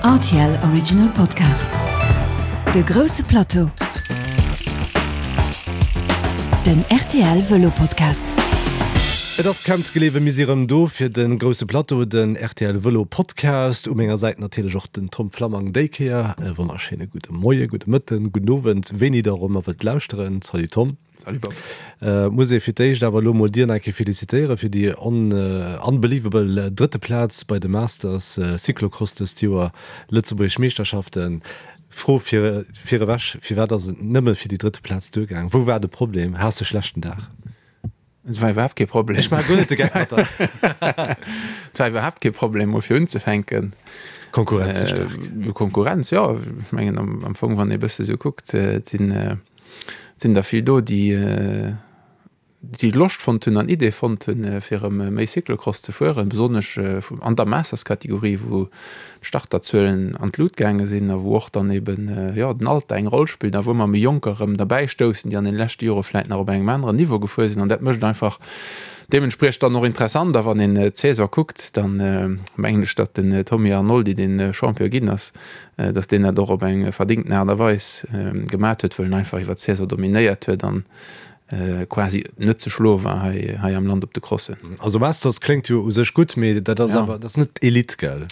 Rtl Original Podcast. De grousse Plateau. Den rtl Vëlo Podcast. Et ass kaum ze gleewen, mir si rëm do fir de grousse Plateau, den rtl Vëlo Podcast. U menger Säit natierlech och den Tom Flammang déi Kéier. E wonnerschéine gudde Moie, gudde Mëtten, gudden Owend, wéini der och ëmmer wëllt lauschteren. Salut Tom. Salut Bob. Muss ee fir d'éischt awer elo mol dir nach eng Kéier felicitéiere fir déi unbelievable drëtte Plaz bei de Masters Cyclocross dëst Joer, Lëtzebuergesch Meeschterschaften. Fro fir virewech, firwat ass et nëmme fir déi drëtte Plaz duergaang? Wou war de Problem? Has de schlechten Dag? Et war iwwerhaapt kee Problem. Ech maache guer net de Geck mat der. Et war iwwerhaapt kee Problem, mol fir unzefänken. Konkurrenz ze staark. Konkurrenz, jo. Ech mengen am Fong, wann ee bësse sou kuckt, et sinn Et sinn der vill do, déi déi Loscht fonnt hunn an Idee fonnt hunn, fir erëm méi Cyclocross ze fueren, besonnesch an der Masters-Kategorie, wou d'Starterzuelen an d'Lut gaange sinn a wou och dann eben, jo, den Alter eng Roll spillt a wou ëmmer méi Jonker erëm derbäi stoussen, déi an den leschte Jore vläit nach op engem aneren Niveau gefuer sinn. An dat mécht einfach deementspriechend dann och interessant. A wann een d'Saison kuckt, dann mengen ech, datt den Tommy Arnoldi, dee Champion ginn ass, datt deen dat och op eng verdéngten Aart a Weis gemat huet, wëll en einfach iwwer d'Saison dominéiert huet an quasi net ze schloe war hei hei am Land op de Crossen. Also Masters kléngt jo u sech gutt, mee dat ass awer, dat ass net Elite, gell?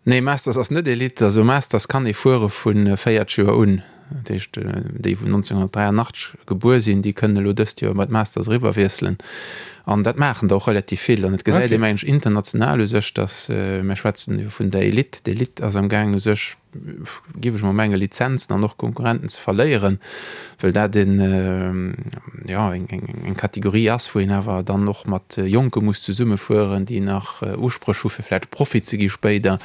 Nee, Masters ass net Elite. Also Masters kann ee fuere vu 40 Joer un. Dat heescht, déi wou 1983 gebuer sinn, déi kënnen elo dëst Joer bei d'Masters eriwwer wiesselen. An dat maachen der och relativ vill. An et gesäit ee mengen ech international u sech, datt, mir schwätzen jo vun der Elite, d'Elite ass am gaangen u sech, géif ech mol mengen, Lizenzen an och Konkurrenten ze verléieren, well dat een, jo, eng Kategorie ass, wou een awer dann och mat Jonke muss zesummefueren, déi nach Uspréch hu fir vläicht Profi ze gi spéider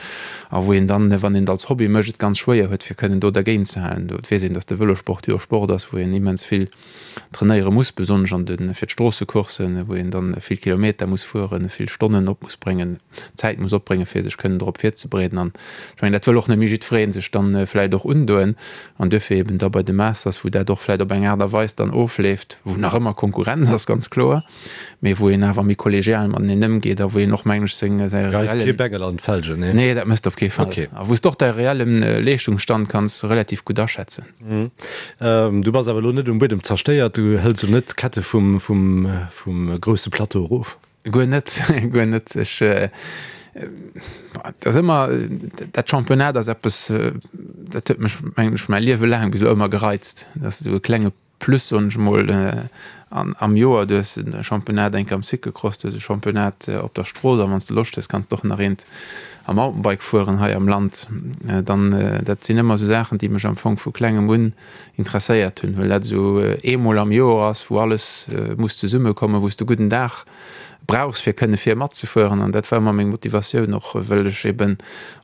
a wou een dann, wann een et als Hobby mécht, et ganz schwéier huet, fir kënnen do dergéint ze halen. Do weess een, datt de Vëlosport jo e Sport ass, wou een immens vill trainéiere muss, besonnesch an de fir d'Stroossecourssen, wou een dann vill Kilometer muss fueren, vill Stonnen op muss bréngen, Zäit muss opbréngen, fir sech kënnen drop virzebereeden. An ech mengen, dat wëll och net méi jiddweree sech dann vläicht och undoen. An duerfir eben da bei de Masters, wou dat och vläicht op eng Aart a Weis dann ofleeft, wou nach ëmmer Konkurrenz ass, ganz kloer, mee wou een awer méi kollegial mateneen ëmgeet a wou een och, mengen ech, seng, säi Geist kee reellen. Bengel an d'Felgen, nee? Nee, dat méchs de op kee Fall. Okay. A wou s de och däi reellen Leeschtungsstand kanns relativ gutt aschätzen. Du bass awer elo net um Buedem zerstéiert, du hëls elo net d'Kette vum, vum, vum grousse Plateau erof? Guer net, guer net. Ech, et ass ëmmer, dat Championnat ass eppes, dat huet mech, mengen ech, mäi Liewe laang bis elo ëmmer gereizt. Dat ass esou e klenge Plus, soen ech emol, am Joer. Du hues e Championnat eng Kéier am Cyclocross, du hues e Championnat op der Strooss a wann s de Loscht hues, kanns de och nach eent am Mountainbike fueren hei am Land. Dann, dat sinn ëmmer esou Saachen, déi mech am Fong vu klengem un interesséiert hunn, well dat esou eemol am Joer ass, wou alles muss zesummekommen, wou s de gudden Dag brauchs, fir kënne vir matzefueren. An dat war ëmmer meng Motivatioun, och well ech eben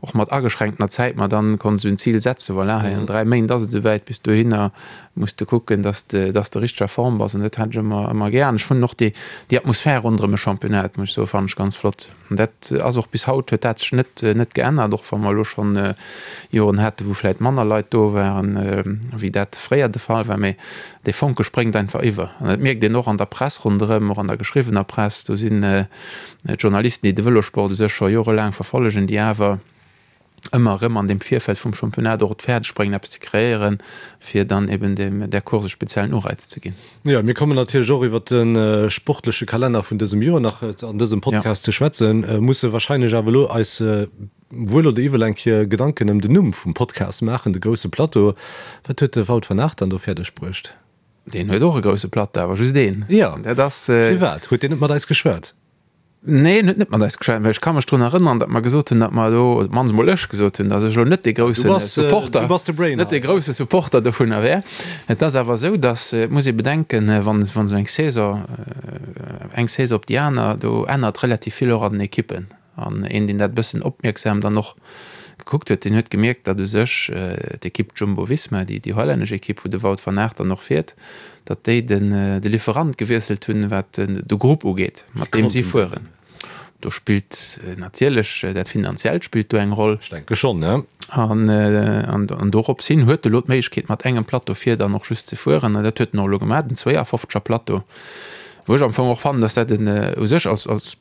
och mat ageschränktener Zäit mer dann konnt esou en Zil setzen, voilà, hei an 3 Méint ass et esouwäit, bis dohinner muss de kucken, dass de, dass de richteg a Form bass. An dat hat ech ëmmer, ëmmer gär. An ech fannen och déi, déi Atmosphär ronderëm e Championnat, muss ech soen, fannen ech ganz flott. An dat ass och bis haut, huet dat sech net, net geännert, och wa mer elo schonn Joren haten, wou vläicht manner Leit do waren, wéi dat fréier de Fall war. Mee dee Fonke spréngt einfach iwwer. An dat mierkt een och an der Press ronderëm, och an der geschriwwener Press. Do sinn d'Journalisten, déi de Vëlosport u sech scho jorelaang verfollegen, déi awer ëmmer erëm an deem Virfeld vum Championnat och et fäerdeg bréngen, eppes ze kreéieren, fir dann eben deem, där Course e speziellen Ureiz ze ginn. Jo, mir kommen natierlech och iwwert de sportleche Kalenner vun dësem Joer nach an dësem Podcast ze schwätzen, musse wahrscheinlech awer elo eis wuel oder iwwel eng Kéier Gedanken ëm den Numm vum Podcast maachen, de grousse Plateau. Wat huet de Wout van Aert dann do fäerdeg bruecht? Deen huet och e grousse Plateau, awer just een. Jo, dat ass. Firwat huet deen net mat eis geschwat? Nee, en huet net mat eis geschwat, well ech ka mech drun erënneren, datt mer gesot hunn, datt mer do, op d'mannst emol ech gesot hunn, datt ech elo net dee grousse Supporter, net dee grousse Supporter dovunner wär. Et ass awer esou, datt, et muss ee bedenken, wann, wann esou eng Saison, eng Saison op déi aner, do ännert relativ vill och an den Ekippen. An een, deen dat e bëssen opmierksam dann och gekuckt huet, deen huet gemierkt, datt u sech d'Ekipp Jumbo-Visma, déi, déi hollännesch Ekipp, wou de Wout van Aert dann och fiert, datt déi den de Lieferant gewiesselt hunn, wat de Grupp ugeet, mat deem si fueren. Do spillt natierlech dat Finanziellt spillt do eng Roll. Ech denke schonn, ne? An an dorops hin huet e lo d'Méiglechkeet, mat engem Plateau vir dann och just ze fueren. An dat huet en och elo gemaach, den 52er Plateau, wou ech am Fong och fannen, datt dat en u sech als als.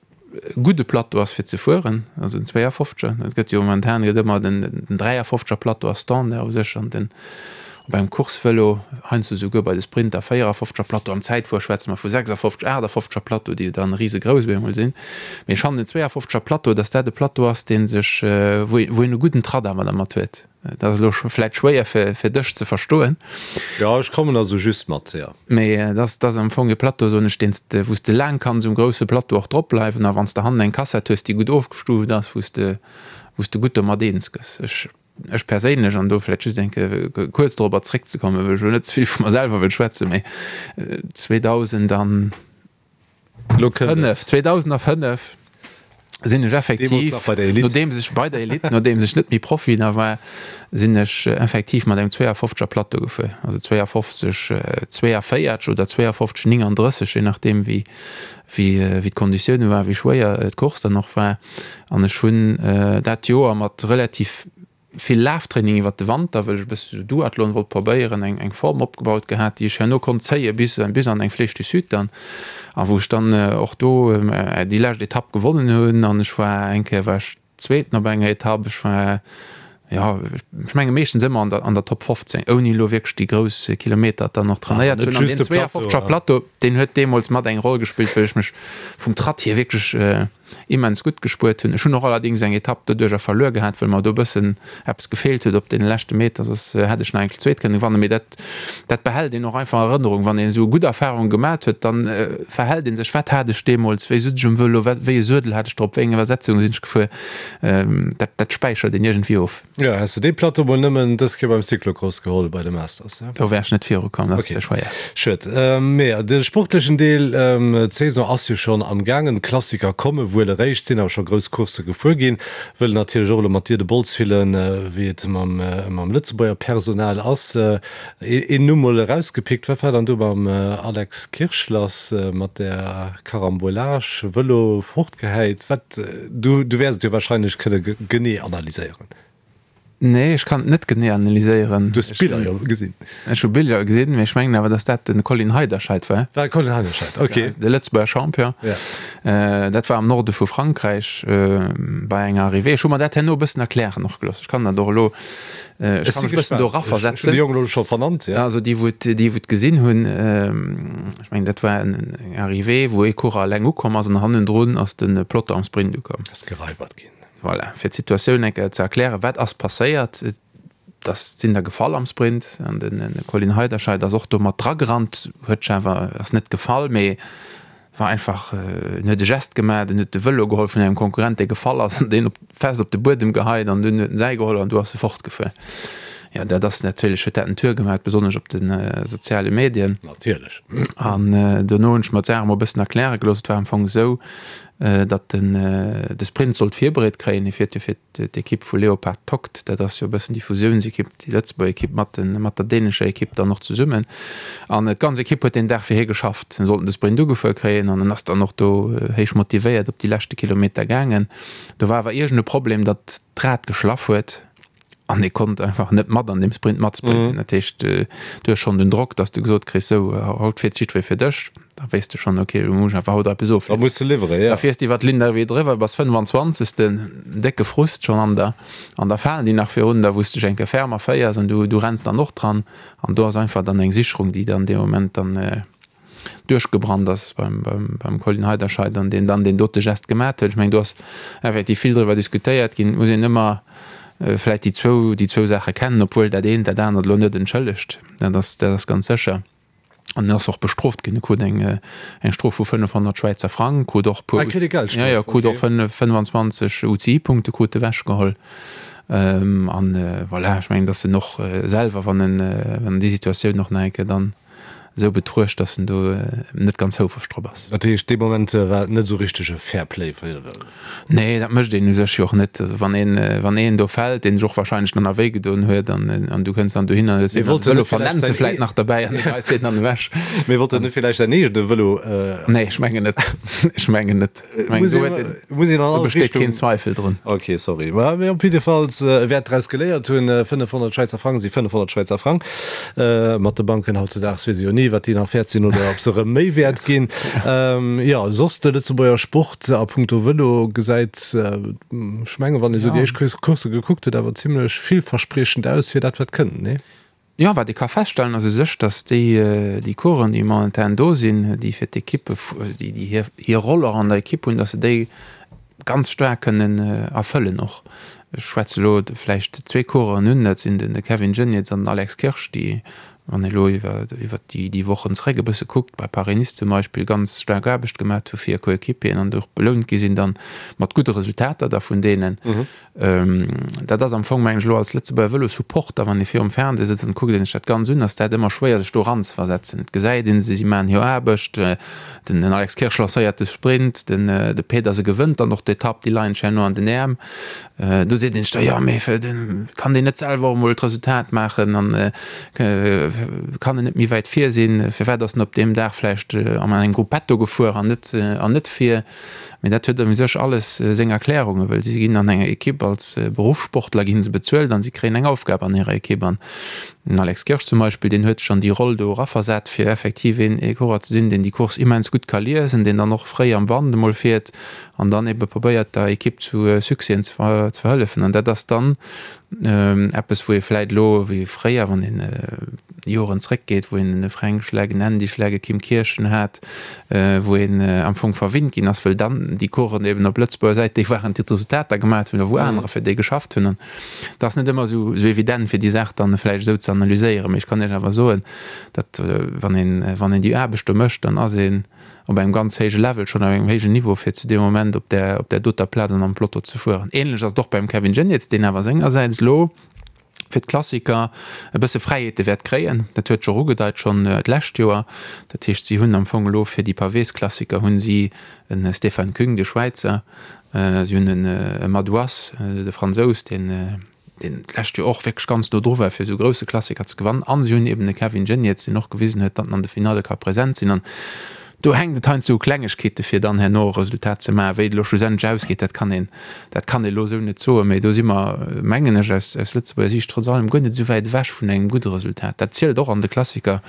gudde Plateau ass fir ze fueren, also den 52er. Et gëtt jo momentan gëtt ëmmer den 53er Plateau ass Standard u sech an den op engem Coursevëlo, heiansdo souguer bei de Sprinter 54er Plateau, am Zäitfuer schwätze mer vu 56, 58er Plateau, déi jo dann risegrouss op eemol sinn. Mee ech fannen den 52er Plateau, datt dat e Plateau ass, dee sech, wou een e gudden Tratt awer dermat huet. Dat ass elo vläit schwéier fir dech ze verstoen. Jo, ech kommen also just mat, jo. Mee et ass, et ass am Fong e Plateau, soen ech, deen s de, wou s de laang kanns um grousse Plateau och drop bleiwen. A wann s de hannen eng Kassett hues, déi gutt ofgestuuft ass, wou s de, wou s de gutt domat eens gëss. Ech, ech perséinlech, an do vläit just eng Kéier kuerz dorobber zréckzekommen, well ech elo net ze vill vu mer selwer wëll schwätzen, mee 2000 an. Lo kënnt et. 2005 sinn ech effektiv, Deemools nach bei der Elite. nodeems ech bei der Elite, nodeems ech net méi Profi nach war, sinn ech effektiv mat engem 52er Plateau gefuer, also 52 42 oder 52 39, je nachdeem wéi wéi wéi d'Konditioune waren, wéi schwéier d'Course dann och war. An ech hunn dat Joer mat relativ vill Laftraining iwwert de Wanter, wëll ech e bësse sou Duathlon wollt probéieren, eng eng Form opgebaut gehat, déi ech herno konnt zéie bis bis an eng Flèche du Sud dann, a wou ech dann och do déi lescht Etapp gewonnen hunn an ech war eng Kéier war ech Zweeten op enger Etapp, ech war jo ech menge meeschtens ëmmer an der an der Top 15, ouni elo wierklech déi grouss Kilometer dann och trainéiert ze hunn. An deen 52er Plateau, deen huet deemools mat eng Roll gespillt, wëll ech mech vum Tratt hier wierklech immens gutt gespuert hunn. Ech hunn och allerdings eng Etapp doduercher verluer gehat, well mer do e bëssen eppes gefeelt huet op deene leschte Meter, soss hätt ech nach eng zweet kënne gewannen. Mee dat, dat behält een och einfach an Erënnerung. Wann een esou gutt Erfarunge gemat huet, dann verhält ee sech, wat hat ech deemools, wéi sutz ech um Vëlo, wat, wéi e Suedel hat ech drop, wéi eng Iwwersetzung sinn ech gefuer. Dat, dat späichert een iergendwéi of. Jo, häss de dee Plateau mol nëmmen dës Kéier beim Cyclocross geholl bei de Masters, ne? Do wär ech net viru komm, dat ass ze schwéier. Schued. Mee de sportlechen Deel, d'Saison ass jo schonn am gaangen, d'Klassiker komme wuel eréischt, sinn awer scho grouss Coursse gefuer ginn. Wëll natierlech och elo mat dir de Bols fillen, wéi et mam mam Lëtzebuerger Personal ass. Een Numm mol erausgepickt, wat war dann do mam Alex Kirsch lass, mat där Carambolage, Vëlo fortgehäit? Wat, du du wäers et jo wahrscheinlech kënne genee analyséieren. Nee, ech kann et net genee analyséieren. Du hues d'Biller jo gesinn. Ech hu Biller gesinn, mee ech mengen awer, datt dat de Colin Heiderscheid war. War Colin Heiderscheid, ok. De Lëtzebuerger Champion. Ja. Dat war am Norde vu Frankräich bei enger Arrivée. Ech hu mer dat herno e bëssen erklären och gelooss. Ech kann dat och elo, ech kann mech e bëssen do eraversetzen. Ech hunn de Jong elo scho vernannt, ja. Also déi, wou et, déi wou et gesinn hunn, ech mengen dat war eng Arrivée, wou ee Coureur eleng ukomm ass an hannendrun ass de Peloton am Sprint ukomm. Ass geraibert ginn. Voilà, fir d'Situatioun eng Kéier ze erklären, wat ass passéiert? Et ass, sinn der gefall am Sprint an den Colin Heiderscheid ass och do mat dragerannt, huet sech awer, ass net gefall, mee war einfach, en huet e Gest gemaach, en huet de Vëlo geholl vun engem Konkurrent, dee gefall ass, an deen op, fest op de Buedem geheit an dunn huet en säi geholl an du ass e fortgefuer. Jo, dat ass natierlech, huet dat en Tour gemaach, besonnesch op de soziale Medien. Natierlech. An dono hunn ech mer d'Saach emol e bëssen erkläre gelooss. Et war am Fong esou, datt en de Sprint sollt virbereet kréien. Hie fiert jo fir d'Ekipp vu Leopard Tokt, dat ass jo e bëssen déi Fusiounsekipp, déi Lëtzebuerger Ekipp mat de mat der dänescher Ekipp dann och zesummen. An d'ganz Ekipp huet deen Dag fir hie geschafft. En sollten de Sprint ugefuer kréien an en ass dann och do héich motivéiert op déi leschte Kilometer gaangen. Do war awer iergend e Problem, datt d'Rad geschlaff huet an e konnt einfach net mat an deem Sprint matsprinten. Dat heescht, du hues schonn den Drock, datt s de gesot kriss, sou haut fiert jiddweree fir dech. Da weess de schonn, ok, elo muss ech einfach haut eppes ofliwweren. Da muss de liwweren, jo. Da fiers de iwwer d'Linn d'arrivée driwwer, bass 25. Décke Frust schonn an der, an da falen déi nach virun der, wou s de dech eng Kéier ferm erféiers an du, du renns dann och dran. An do ass einfach dann eng Sicherung, déi dann dee Moment dann duerchgebrannt ass beim, beim, beim Colin Heiderscheid an deen dann deen dote Gest gemat huet. Ech mengen, do ass effektiv vill driwwer diskutéiert ginn. Et muss een ëmmer vläicht déi zwou, déi zwou Saache kennen, obwuel dat eent dat anert elo net entschëllegt. Dat ass, dat ass ganz sécher. An en ass och bestrooft ginn. E krut eng, eng Strof vu 500 Schwäizer Frang, krut och e puer, Ah, kritt e Geldstrof, ja, ja, krut och okay. 25 UCI-Punkte krut ewechgeholl. An voilà, ech mengen, datt en och selwer, wann en, wann en déi Situatioun och nach eng Kéier dann esou betruecht, datt en do net ganz houfreg drop ass. Dat heescht, dee Moment war et net esou richteg e Fair Play? Nee, dat mécht een u sech jo och net. Also wann een, wann een do fält, deen sech och wahrscheinlech dann nach wéi gedoen huet an, an du kënns dann dohinner an hues Mee deen wollt en Vëlo net villäicht vernennt se säin vläit nach derbäi an du geheis deen dann ewech. Mee wollt en net villäicht säin eegene Vëlo? Nee, ech mengen net. Ech mengen net. Ech mengen, Muss do een, huet een, muss een an do all besteet keen Richtung. Zweifel drun. Ok, sorry. Ma mee op jiddefalls, e wäert draus geléiert hunn. 500 Schwäizer Frang si 500 Schwäizer Frang. Mat de Banken hautzedaags weess ee jo ni. genee, wat déi nach wäert sinn oder ob se erëm méi wäert ginn. Jo, soss de Lëtzebuerger Sport a punkto Vëlo gesäit, ech mengen, wann ee sou déi éischt Coursse gekuckt huet, awer zimlech villverspriechend aus fir dat, wat kënnt, nee? Jo, wat ee ka feststellen ass u sech, datt déi, déi Coureuren, déi momentan do sinn, déi fir d'Ekippe, déi déi hir, hir Roll och an der Ekipp hunn, datt se déi ganz staark kënnen erfëllen och. Ech schwätze elo vläicht zwee Coureuren un, dat sinn de Kevin Geniets an den Alex Kirsch, déi, wann ee elo iwwer, iwwer déi, déi Wochen zeréck e bësse kuckt, bei Paris-Nice zum Beispill ganz staark Aarbecht gemaat hu fir hir Coéquipieren an och belount gi sinn dann mat gudde Resultater da vun deenen. Dat ass am Fong, mengen ech, elo als Lëtzebuerger Vëlo-Supporter, wann ee virum Fernseh sëtzt an kuckt een sech dat Ganz un, ass dat ëmmer schwéier sech do eranzeversetzen. Et gesäit een se, si maachen hir Aarbecht, den Alex Kirsch lancéiert de Sprint, den de Pedersen gewënnt dann och d'Etapp, déi leien sech herno an den Äerm. Do seet een sech da, jo mee kann deen net selwer och emol d'Resultat maachen an kann en net méi wäit vir sinn, firwat ass en op deem Dag vläicht an engem Gruppetto gefuer an net an net vir? Mee dat huet u sech alles seng Erklärungen, well si ginn an enger Ekipp als Beruffssportler gi se bezuelt an si kréien eng Aufgab an hirer Ekipp. An den Alex Kirsch zum Beispill, deen huet sech an déi Roll do eraversat, fir effektiv een ee Coureur ze sinn, deen déi Course immens gutt ka liesen, deen dann och fréi am Wand emol fiert an dann ebe probéiert der Ekipp zu Succèsen ze verhëllefen. An dat ass dann Eppes, wou ee vläit elo, wéi fréier, wann een Joren zréckgeet, wou een e Fränk Schleck, en Andy Schleck, e Kim Kirchen hat, wou een am Fong verwinnt ginn ass, wëll dann déi Coursen eben op Lëtzebuerger Säit déi waren, déi d'Resultater gemaat hunn a wou anerer fir déi geschafft hunn. An et ass net ëmmer esou evident, fir déi Saach dann vläicht esou ze analyséieren. Mee ech kann Iech awer soen, datt wann een, wann een déi Aarbecht do mécht, dann ass een, op engem ganz héije Level, schonn op engem héijen Niveau, fir zu deem Moment op där, op där doter Plaz an am Peloton ze fueren. Ähnlech ass et och beim Kevin Geniets, deen awer sengersäits elo fir d'Klassiker e bësse Fräiheete wäert kréien. Dat huet sech och ugedeit schonn d'lescht Joer. Dat heescht, si hunn am Fong elo fir déi Pavésklassiker hunn si e Stefan Küng, de Schwäizer, si hunn e Madouas, de Fransous, deen, deen d'lescht Joer och wierklech ganz no dru war, fir esou grousse Klassiker ze gewannen. An si hunn eben de Kevin Geniets, deen och gewisen huet, datt en an de Finalle ka present sinn. An do hänkt et heiansdo u Klengegkeete fir dann herno e Resultat ze maachen. Wéi et elo schlussendlech ausgeet, dat kann een, dat kann ee elo esou net soen. Mee do si mer, mengen ech, aus, aus Lëtzebuerger Siicht trotz allem guer net esou wäit ewech vun engem gudde Resultat. Dat zielt och an de Klassiker.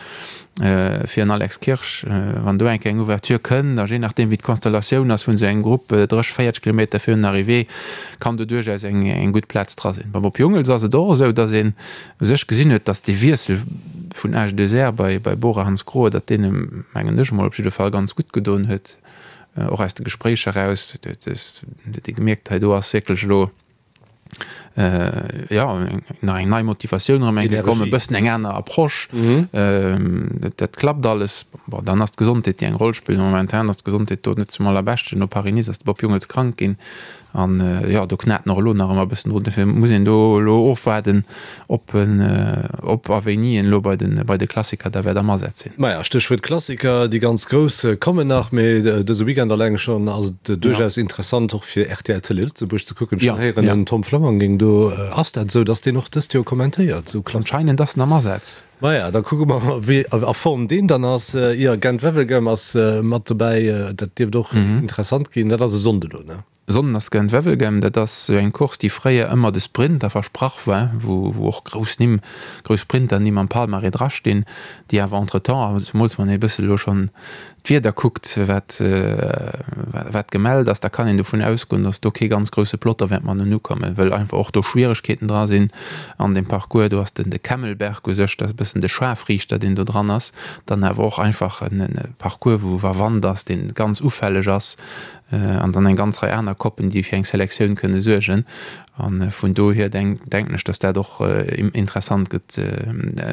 Fir en Alex Kirsch, wann do eng Kéier eng Ouverture kënnt, a jee nachdeem wéi d'Konstellatioun ass vun esou engem Grupp, 30, 40 Kilometer virun der Arrivée, kann do duerchaus eng eng gutt Plaz dra sinn. Beim Bob Jungels ass et och esou, datt een u sech gesinn huet, datt dee Wiessel vun AG2R bei bei Bora Hansgrohe, datt deen em, mengen ech emol, op jidde Fall ganz gutt gedoen huet, och aus de Gespréicher eraus huet ee gemierkt, hei do ass wierklech elo jo nach eng nei Motivatioun erëm eng Kéier komm, e bëssen eng aner Approche. Dat dat klappt alles. Bon, dann ass d'Gesondheet, déi eng Roll spillt. Momentan ass d'Gesondheet do net zum allerbeschten. No Paris-Nice ass de Bob Jungels krank ginn an jo, do knat en och elo nach ëmmer e bëssen drun. Dofir muss een do elo ofwaarden, ob en, ob a wéini en elo bei de bei de Klassiker da wäert am Asaz sinn. Maja, Stéchwuert Klassiker, déi ganz grouss kommen nach, mee dëse Weekend alleng schonn ass et duerchaus interessant och fir rtl Télé Lëtzebuerg ze kucken. Ech hunn héieren, den Tom Flammang géing do, ass dat esou, datt deen och dëst Joer kommentéiert, esou Klassiker? Anscheinend ass en am Asaz. Maja, da kucke mer mol, wéi a Form deen dann ass. Jo, Gent-Wevelgem ass mat dobäi, dat dierft och interessant ginn. Dat ass e Sonnde lo, ne? Sonden ass Gent-Wevelgem, dat ass esou eng Course, déi fréier ëmmer de Sprinter versprach war, wou wou och grouss Nimm, grouss Sprinternimm am Palmarès drastinn, déi awer entretemps, a zemools wann ee e bësse elo schonn d'Wieder kuckt, wat wat gemellt ass, da kann een dovun ausgoen, datt do kee ganz grousse Peloton wäert mateneen ukommen, wëll einfach och do Schwieregkeeten dra sinn an deem Parcours. Do ass den de Kemmelberg u sech, dat ass e bëssen de Scharfriichter, deen do dran ass, dann awer och einfach en Parcours, wou wa Wand ass, dee ganz ufälleg ass, an dann eng ganz Rei aner Koppen, déi fir eng Selektioun kënne suergen. A vun dohier denken ech, datt dat och interessant gëtt,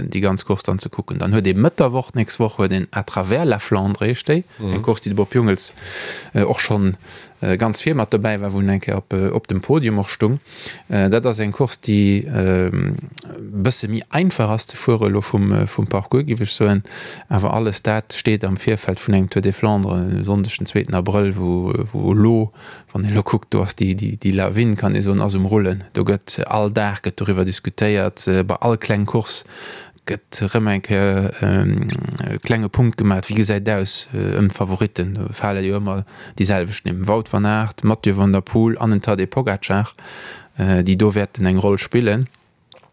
déi ganz Course dann ze kucken. Dann huet ee Mëtt der Woch, d'nächst Woch huet een À travers la Flandre heescht déi, eng Course, déi de Bob Jungels och schonn ganz vir mat dobäi war, wou en eng Kéier op dem Podium och stung. Dat ass eng Course, déi e bësse méi einfach ass ze fuere elo vum Parcours, géif ech soen. Awer alles dat steet am Virfeld vun engem Tour des Flandres e Sonndeg, den zweeten Abrëll, wou elo, wann een elo kuckt, do ass déi Lawin, kann ee soen, ass um Rullen. Do gëtt all Dag gëtt doriwwer diskutéiert, bei all kleng Course gëtt erëm eng Kéier e klenge Punkt gemaach, wéi gesäit et aus ëm d'Favoritten. Do fale jo ëmmer déi selwecht Nimm, Wout van Aert, Mathieu van der Poel an en Tadej Pogacar, déi do wäerten eng Roll spillen.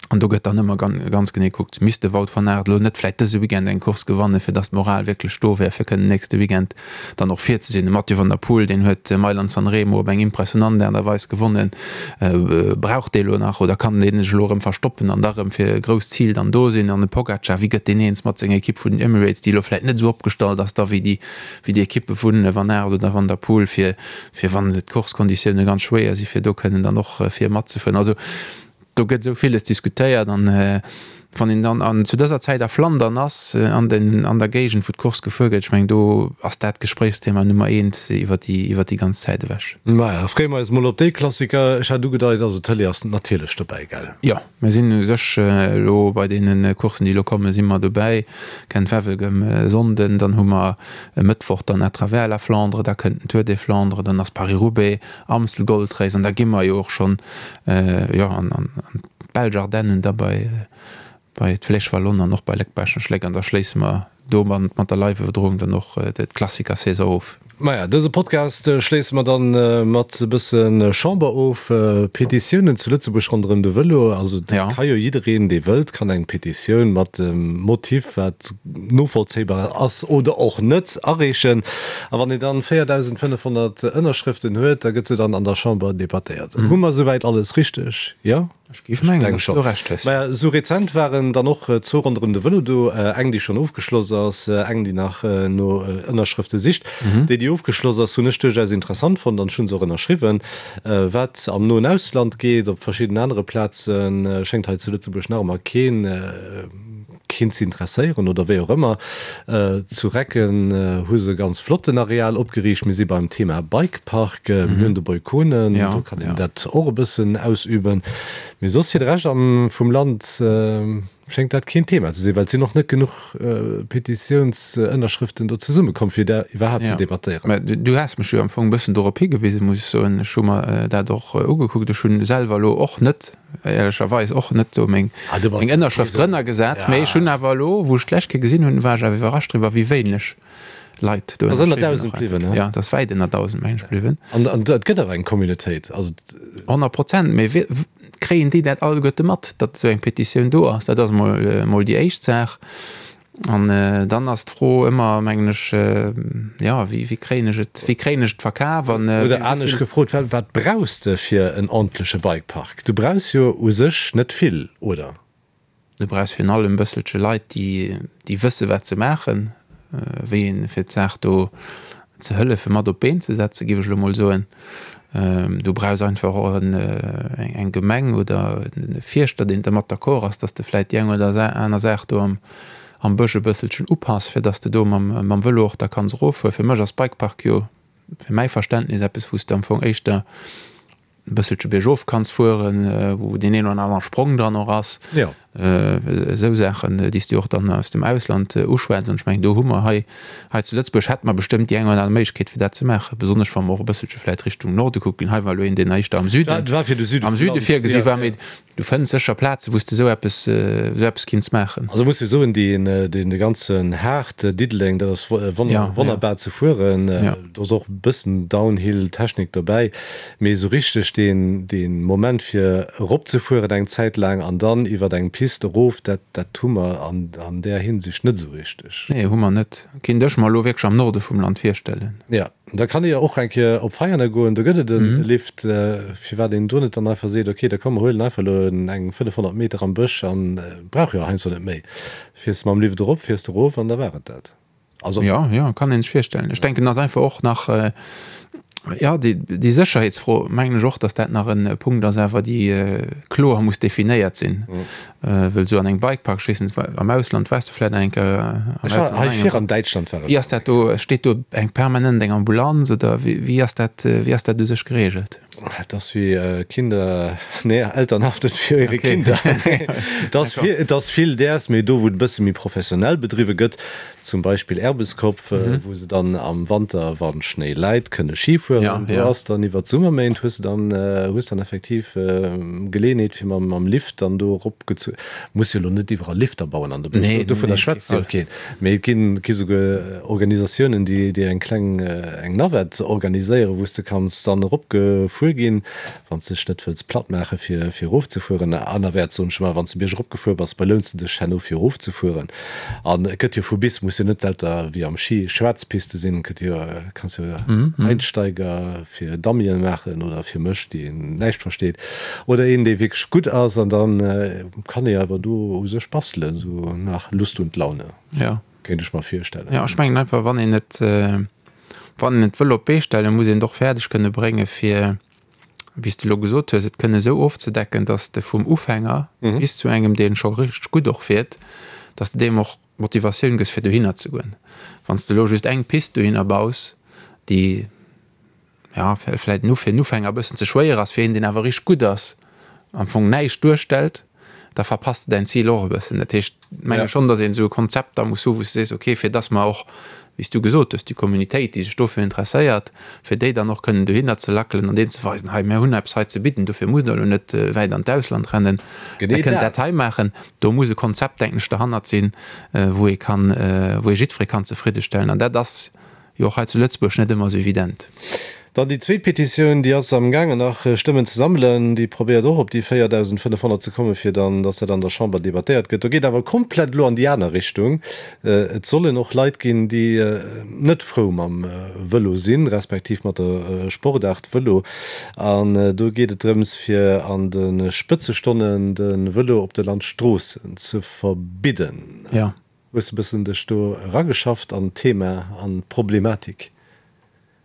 An do gëtt dann ëmmer ganz genee gekuckt, misst de Wout van Aert elo net vläicht dëse Weekend eng Course gewannen, fir datt d'Moral wierklech do wär, fir kënnen nächste Weekend dann och vir ze sinn. De Mathieu van der Poel, deen huet Mailand-San Remo op eng impressionant Aart a Weis gewonnen. Brauch dee elo nach oder kann dee sech elo erëm verstoppen an da erëm fir e grousst Zil dann do sinn? An de Pogacar, wéi gëtt deen eens mat senger Ekipp vun den Emirates, déi elo vläicht net esou opgestallt ass da wéi déi wéi déi Ekippe vu Van Aert oder Van der Poel, fir fir wann d'Course-Konditioune ganz schwéier sinn, fir do kënnen dann och vir matzefueren. Also Do gëtt esou villes diskutéiert an wann een dann an zu dëser Zäit a Flandern ass, an den an der Géigend wou d'Course gefuer gëtt, ech mengen do ass dat d'Gespréichsthema Nummer eent iwwer déi iwwer déi ganz Zäit ewech. Maja, freeë mer eis mol op dee Klassiker. Ech hat ugedeit, also d'Tëlee ass natierlech dobäi, gell? Jo, mir sinn u sech elo bei deene Courssen déi elo kommen, si mer dobäi. Gent-Wevelgem e Sonnden, dann hu mer e Mëttwoch dann À travers la Flandre, da kënnt den Tour des Flandres, dann ass Paris-Roubaix, Amstel Gold Race an da gi mer jo och schonn jo an d'belsch Ardennen, da bei bei d'Flèche Wallonne an och bei Léck-Baaschtnech-Léck an da schléisse mer do mat der Live-Iwwerdroung dann och d'Klassiker-Saison of. Maja, dëse Podcast schléisse mer dann mat e bësse Chamber of. Petitiounen zu Lëtzebuerg ronderëm de Vëlo, also et ka jo jiddereen, dee wëllt, kann eng Petitioun mat dem Motiv, wat novollzéibar ass oder och net, areechen. A wann een dann 4.500 Ënnerschrëften huet, da gëtt se dann an der Chamber debattéiert. Hu mer esouwäit alles richteg? Jo? Ech géif mengen, datt s du Recht hues. Maja, esou rezent waren dann och zwou ronderëm de Vëlo do, eng, déi schonn ofgeschloss ass, eng, déi nach no Ënnerschrëfte sicht. Déi, déi ofgeschloss ass, hunn ech duerchaus interessant fonnt an ech hu se och ënnerschriwwen. Wat am noen Ausland geet, op verschidden anere Plazen, schéngt hei zu Lëtzebuerg nach ëmmer keen, keen ze interesséieren oder wéi och ëmmer. Zu Recken hu se e ganz flotten Areal opgeriicht. Mir si beim Thema Bikepark. Mir hunn de Boykone, do kann een dat och e bëssen ausüben. Mee soss fir de Rescht am vum Land schéngt dat keen Thema ze sinn, well et sinn och net genuch Petitiounsënnerschrëften do zesummekomm, fir dat iwwerhaapt ze debattéieren. Mä du has mech jo am Fong e bëssen dorop higewisen, muss ech soen. Ech hu mer dat och ugekuckt. Ech hunn selwer elo och net éierlecherweis och net do meng meng Ënnerschrëft drënner gesat, mee ech hunn awer elo, wou ech d'lescht Kéier gesinn hunn, war ech awer iwwerrascht driwwer, wéi wéineg Leit do ënnerschriwwen haten. Ass ënner 1.000 bliwwen, he? Jo, et ass wäit ënner 1.000, meng ech, bliwwen. An an et gëtt awer eng Communautéit, also. 100 Prozent, mee wéi kréien déi dat alleguerte mat, datt esou eng Petitioun do ass? Dat ass mol mol déi éischt Saach. An dann ass d'Fro ëmmer, mengen ech, jo, wéi, wéi kréien ech et, wéi kréien ech et verkaf an. Oder anescht gefrot, wat, wat brauchs de fir en ordentleche Bikepark? Du brauchs jo u sech net vill, oder? Du brauchs virun allem e bësselche Leit, déi, déi wësse wat se maachen, wéi een, fir d'Saach do ze hëllefe mat op d'Been ze setzen, géif ech elo mol soen. Du brauchs einfach och eng Gemeng oder e Fierschter, deen dermat d'accord ass, dass de vläit déi eng oder aner Saach do am Bësch e bësselchen upass, fir dass de do mam Vëlo och da kanns eroffueren. Fir mech ass Bikepark jo, fir mäi Verständnis, eppes, wou s de am Fong éischter e bësselche biergof kanns fueren, wou deen een oder anere Sprong dran och ass. Esou Saachen, déi s du och dann aus dem Ausland uschwätz. An ech mengen, do hu mer hei, hei zu Lëtzebuerg hätte mer bestëmmt déi eng oder aner Méiglechkeet, fir dat ze maachen, besonnesch wa mer och e bësselche vläicht Richtung Norde kucken. Hei war elo een, deen éischter am Süden, am Süde virgesi war, mee du fënns sécher Plazen, wou s de esou eppes, esou eppes kinns maachen. Also muss jo soen, deen, deen de ganzen Haart Diddeleng, dat ass wonnerbar ze fueren. Do ass och e bëssen Downhill-Technik dobäi, mee esou richteg deen, deen Moment fir eropzefueren eng Zäit laang an dann iwwert eng Pist erof, dat, dat hu mer an, an där Hinsicht net esou richteg. Nee, hu mer net. Kinnt ech mer elo wierklech am Norde vum Land virstellen. Jo, da kann ee jo och eng Kéier op Veianen goen, do gëtt et e Lift. Firwat een do net dann einfach seet, ok, da komm mer huelen einfach elo eng 500 Meter am Bësch an brauch jo heiansdo net méi, fiers de mam Lift erop, fiers de erof an da war et dat. Also ja, ja, kann een sech virstellen. Ech denken, ass einfach och nach ja, déi, déi Sécherheetsfro, mengen ech och, datt dat nach en Punkt ass awer, déi kloer muss definéiert sinn. Wëll esou an engem Bikepark, ech weess net, am Ausland waars de vläicht eng Kéier am Ech war hei vir an Däitschland war ech. Wéi ass dat do? Steet do eng permanent eng Ambulanz oder wéi, wéi ass dat, wéi ass dat u sech gereegelt? Et ass wéi Kinder, nee, Eltern haften für ihre Kinder. Et ass vill, et ass vill däers, mee do wou et e bësse méi professionell bedriwwe gëtt, zum Beispill Erbeskopf, wou se dann am Wanter, wa Schnéi läit, kënne Ski fueren, do ass dann iwwer d'Summerméint hues de dann, hues dann effektiv Geleeënheet fir mam, mam Lift dann do erop gezu, muss jo elo net iwwerall Lifter bauen an de Bësch, dovunner schwätzt jo keen. Mee et ginn, gi souguer Organisatiounen, déi, déi eng kleng, eng Navette organiséieren, wou s de kanns dann eropgefuer. gefuer ginn, wann s de dech net wëlls platt maache fir fir erofzefueren. Anerwäerts, soen ech ëmmer, wann s de bierg eropgefuer bass, belouns de dech herno fir erofzefueren. An et gëtt jo vu bis, muss jo net lauter wéi am Schi schwaarz Piste sinn, et gëtt jo, kanns jo Einsteiger fir Dummyen maachen oder fir mech, dee näischt versteet, oder een, dee wierklech gutt ass an da kann ee awer do u sech bastelen, sou nach Lust und Laune. Jo. Kéint ech mer virstellen. Jo, ech mengen einfach, wann een et, wann een et wëll op d'Bee stellen, muss een et och fäerdeg kënne brénge fir, wéi s de elo gesot hues, et kënne esou ofzedecken, datt s de vum Ufänger bis zu engem, dee scho richteg gutt och fiert, datt s de deem och d'Motivatioun gëss fir dohinner ze goen. Wann s de elo just eng Pist dohinner baus, déi, ja, vläit en fir en Ufänger e bëssen ze schwéier ass, fir een, deen awer richteg gutt ass, am Fong näischt duerstellt, da verpasst de däin Zil och e bëssen. Dat heescht, ech menge schonn, datt een esou e Konzept da muss hu wou s de sees, okay, fir datt mer och, wéi s du gesot hues, déi Communitéit, déi sech dofir interesséiert, fir déi dann och kënnen dohinner ze lackelen an deenen ze weisen, hei, mir hunn eppes hei ze bidden, dofir musst der elo net wäit an d'Ausland rennen, der kënnt dat hei maachen. Do muss e Konzept, denken ech, derhannert sinn, wou ee kann, wou ee jiddweree kann zefriddestellen. An dat ass jo och hei zu Lëtzebuerg net ëmmer esou evident. Dann déi zweet Petitioun, déi ass amgaangen nach Stëmmen ze sammelen. Déi probéiert och op déi 4.500 ze kommen, fir dann, dass dat an der Chamber debattéiert gëtt. Do geet awer komplett elo an déi aner Richtung. Et sollen och Leit ginn, déi net frou mam Vëlo sinn, respektiv mat der Sportaart Vëlo. An do geet et drëms, fir an de Spëtzestonnen de Vëlo op de Landstroossen ze verbidden. Jo. Hues de bëssen dech do erageschafft an d'Thema an d'Problematik?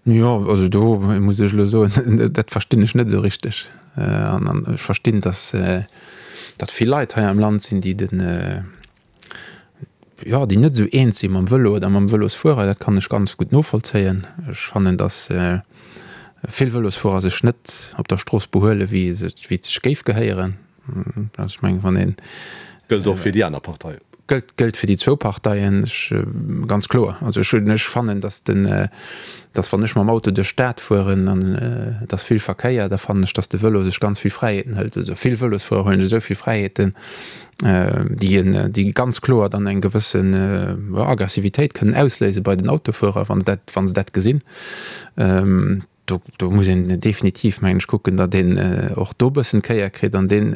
Jo, also do muss ech elo soen, dat verstinn ech net esou richteg. An ech verstinn, datt datt vill Leit hei am Land sinn, déi den, jo, déi net esou eens si mam Vëlo oder mam Vëlosfuerer. Dat kann ech ganz gutt novollzéien. Ech fannen, datt vill Vëlosfuerer sech net op der Strooss behuelen, wéi et sech géif gehéieren. Also ech mengen, wann een. Gëllt och fir déi aner Partei. Gëllt, gëllt fir déi zwou Parteien, ech, ganz kloer. Also ech hunn, ech fannen, datt den, datt wann ech mam Auto duerch d'Stad fueren an et ass vill Verkéier, da fannen ech, datt de Vëlo sech ganz vill Fräiheeten hëlt. Also vill Vëlosfuerer huelen sech esou vill Fräiheeten, déi en, déi ganz kloer dann eng gewëssen, jo, Aggressivitéit kënnen ausléise bei den Autofuerer, wa se dat, wa se dat gesinn. Do, do muss een definitiv, mengen ech, kucken, datt een och do e bëssen d'Kéier kritt an deen,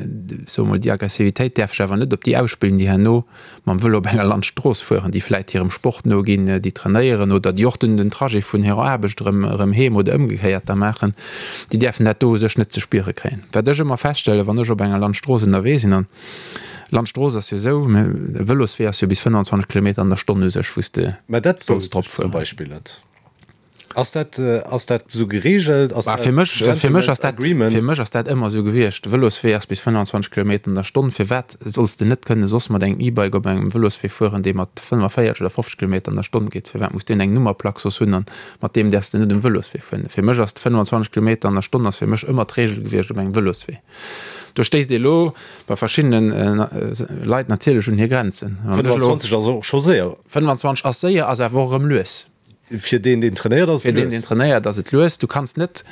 soe mol, déi Aggressivitéit däerf sech awer net op déi ausspillen, déi herno mam Vëlo op enger Landstrooss fueren, déi vläit hirem Sport noginn, déi trainéieren oder déi och den, den Trajet vun hirer Aarbecht erëm, erëm heem oder ëmgekéiert da maachen, déi däerfen dat do u sech net ze spiere kréien. Wat ech ëmmer feststellen, wann ech op enger Landstrooss ënnerwee sinn, an Landstrooss ass jo esou, e Vëloswee ass jo bis 25 Kilometer an der Stonn u sech, wou s de Mä dat solls wousst drop ech zum fueren. Beispill net. Ass dat, ass dat esou geregelt? Ass dat fir mech, fir mech ass dat, Agreement? Fir mech ass dat ëmmer esou gewiescht. De Vëloswee ass bis 25 Kilometer an der Stonn. Firwat solls de net kënne soss mat engem E-Bike op engem Vëloswee fueren, dee mat 45 oder 50 Kilometer an der Stonn geet? Firwat muss deen eng Nummerplack soss hunn an mat deem däerfs de net um Vëloswee fueren? Fir mech ass 25 Kilometer an der Stonn ass fir mech ëmmer d'Regel gewiescht op engem Vëloswee. Do stéisst ee lo bei verschiddene Leit natierlech un hir Grenzen. 25 ass och scho séier. 25 ass séier, ass awer och erëm lues. Fir deen, deen trainéiert, ass et lues. Fir deen, deen trainéiert, ass et lues. Du kanns net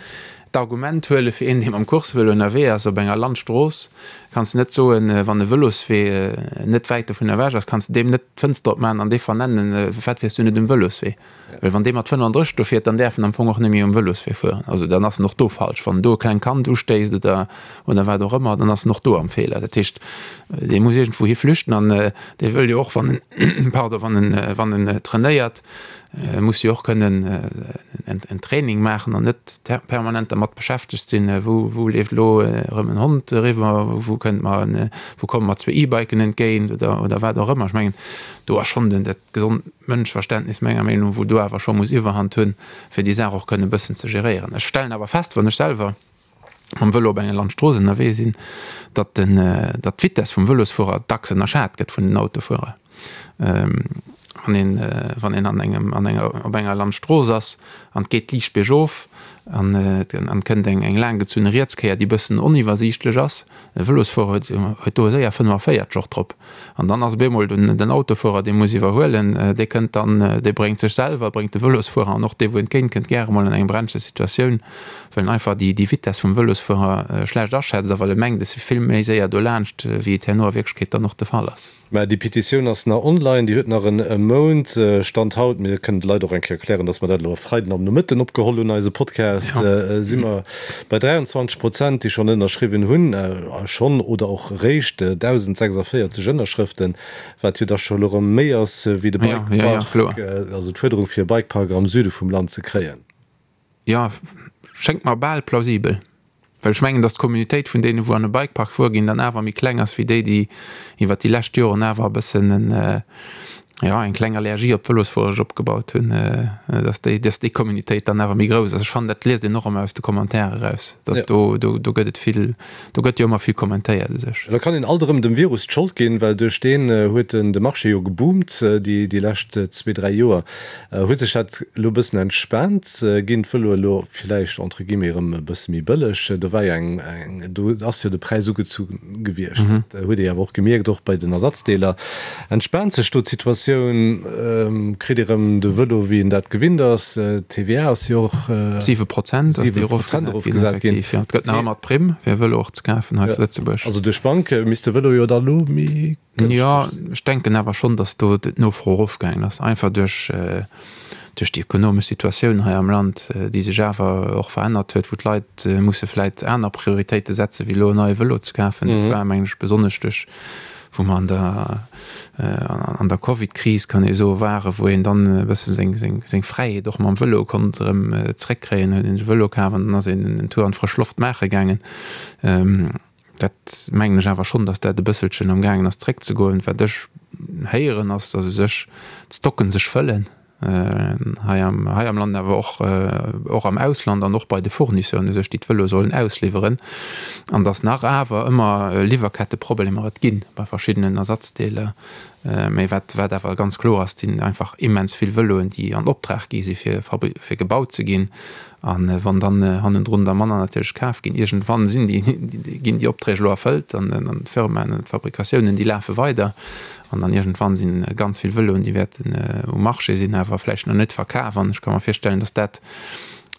d'Argument huele fir een, dee mam Coursevëlo ënnerwee ass op enger Landstrooss, kanns de net soen, wann e Vëloswee net wäit dovun ewech ass, kanns de deem net d'Fënster opmaachen an dee vernennen, Firwat fiers du net um Vëloswee? Well wann dee mat 35 do fiert, dann däerf en am Fong och net méi um Vëloswee fueren. Also dann ass en och do falsch. Wann en do e klengt Kand ustéisst oder, oder wat och ëmmer, dann ass en och do am Feeler. Dat heescht, dee muss iergendwou hi flüchten an dee wëll jo och, wann en, pardon, wann en, wann en trainéiert, muss jo och kënnen en Training maachen an net permanent dermat beschäftegt sinn, wou, wou leeft elo erëm en Hond eriwwer, wou kënnt mer en, wou komme mer zwee E-Biken entgéint oder, oder wat och ëmmer. Ech mengen, do ass schonn den, dat gesond Mënschverständnis menger Meenung no, wou do awer scho muss Iwwerhand hunn, fir déi Saach och kënnen e bëssen ze geréieren. Ech stellen awer fest, wann ech selwer mam Vëlo op enger Landstrooss ënnerwee sinn, datt den, datt d'Vitess vum Vëlosfuerer dacks ënnerschat gëtt vun den Autofuerer. Wann een, wann een an engem, an enger, op enger Landstrooss ass an et geet liicht biergof an et an et kënnt eng, eng laanggezunne Rietskéier, déi bëssen oniwwersiichtlech ass, e Vëlosfuerer huet, huet do séier 45 och drop. An dann ass op eemol den, den Autofuerer, dee muss iwwerhuelen, dee kënnt dann, dee bréngt sech selwer, bréngt de Vëlosfuerer an och dee wou entgéint kënnt, gäre mol an eng brenzleg Situatioun. well en einfach déi Vitess vum Vëlosfuerer schlecht aschätzt a well e mengt, e si vill méi séier dolaanscht, wéi et herno a Wierklechkeet dann och de Fall ass. Mä déi Petitioun ass nach online, déi huet nach en Mount, Stand haut. Mir kënnen de Leit och eng Kéier erklären, dass mer dat elo e Freiden am Nomëtten opgeholl hunn, eise Podcast. Podcast, si mer bei 23 Prozent, déi schonn ënnerschriwwen hunn, schonn oder och eréischt 1.046 Ënnerschrëften, wat jo da scho elo erëm méi ass wéi de Bikepark, also d'Fuerderung fir e Bikepark am Süde vum Land ze kréien. Jo, schéngt mer bal plausibel. Well ech mengen, datt d'Communautéit vun deene wou an e Bikepark fuere ginn, dann awer méi kleng ass wéi déi, déi iwwert déi lescht Joren awer e bëssen en, jo, eng kleng Allergie op d'Vëlosfuere sech opgebaut hunn, datt déi, datt déi Communautéit dann awer méi grouss ass. Ech fannen, dat liest een och ëmmer aus de Commentairen eraus, datt do, do, do gëtt et vill, do gëtt jo ëmmer vill kommentéiert u sech. Da kann een alt erëm dem Virus d'Schold ginn, well duerch deen huet den de Marché jo geboomt déi, déi lescht zwee, dräi Joer. Huet sech dat elo e bëssen entspaant? Ginn d'Vëloe elo villäicht entre guillemets erëm e bësse méi bëlleg? Do war jo eng, do ass jo de Präis ugezu gewiescht. Dat huet ee jo awer och gemierkt, och bei den Ersatzdeeler. Entspaant sech do d'Situatioun? Kritt ee erëm de Vëlo wéi een dat gewinnt ass? D'TVA ass jo och 7 Prozent ass déi erofgesat ginn, effektiv, jo. Et gëtt nach ëmmer d'Primm fir e Vëlo och ze kafen hei zu Lëtzebuerg. Also duerch d'Bank misst de Vëlo jo da elo méi Jo, ech denken awer schonn, datt do d'Nofro erofgaangen ass, einfach duerch duerch déi ekonomesch Situatioun hei am Land, déi sech awer och verännert huet, wou d'Leit musse vläit aner Prioritéite setze wéi elo en neie Vëlo ze kafen. Dat war, mengen ech, besonnesch duerch, wou mer an der an der Covid-Kris, kann ee soen, waren, wou een dann e bësse seng seng seng Fräiheet och mam Vëlo konnt erëm zréckkréien, huet een sech e Vëlo kaf an dann ass een en Tour an d'frësch Loft maache gaangen. Dat mengen ech awer schonn, datt dat e bësselchen am gaangen ass zréckzegoen. Wat ech héieren ass, datt u sech d'Stocken sech fëllen hei am hei am Land, awer och och am Ausland an och bei de Fournisseuren u sech, déi d'Vëloe sollen ausliwweren, an datt nach awer ëmmer Liwwerketteproblemer et gi bei verschiddenen Ersatzdeeler. Mä wat wat awer ganz kloer ass, et sinn einfach immens vill Vëloen, déi an Optrag gi si fir fir gebaut ze ginn. A wann dann hannendrun der manner natierlech kaf ginn, iergendwann sinn déi, ginn déi Opträg elo erfëllt an d'Firmaen an d'Fabrikatiounen, déi lafe weider. An dann iergendwann si ganz vill Vëloen, déi wäerten um Marché sinn, awer vläicht nach net verkaf. An ech ka mer virstellen, datt dat,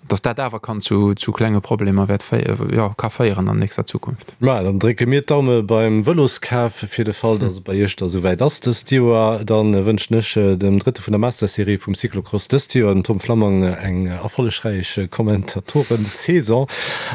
datt dat awer kann zu, zu klenge Problemer wäert féi, jo, ka féieren an nächster Zukunft. Ma dann drécke mir d'Daume beim Vëloskaf fir de Fall, datt et bei Iech da souwäit ass dëst Joer. Da wënschen ech dem Drëtte vun der Master-Serie vum Cyclocross dëst Joer, dem Tom Flammang, eng erfollegräich Kommentatoren-Saison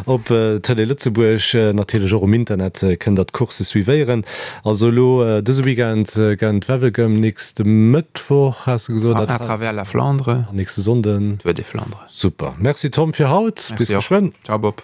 op Tëlee Lëtzebuerg. Natierlech och um Internet kënnt der d'Coursse suivéieren. Also elo dëse Weekend Gent-Wevelgem, nächste Mëttwoch has de gesot? À travers la Flandre. An nächste Sonnden? Tour des Flandres. Super. Merci Tom fir haut. Bis geschwënn. Ciao Bob.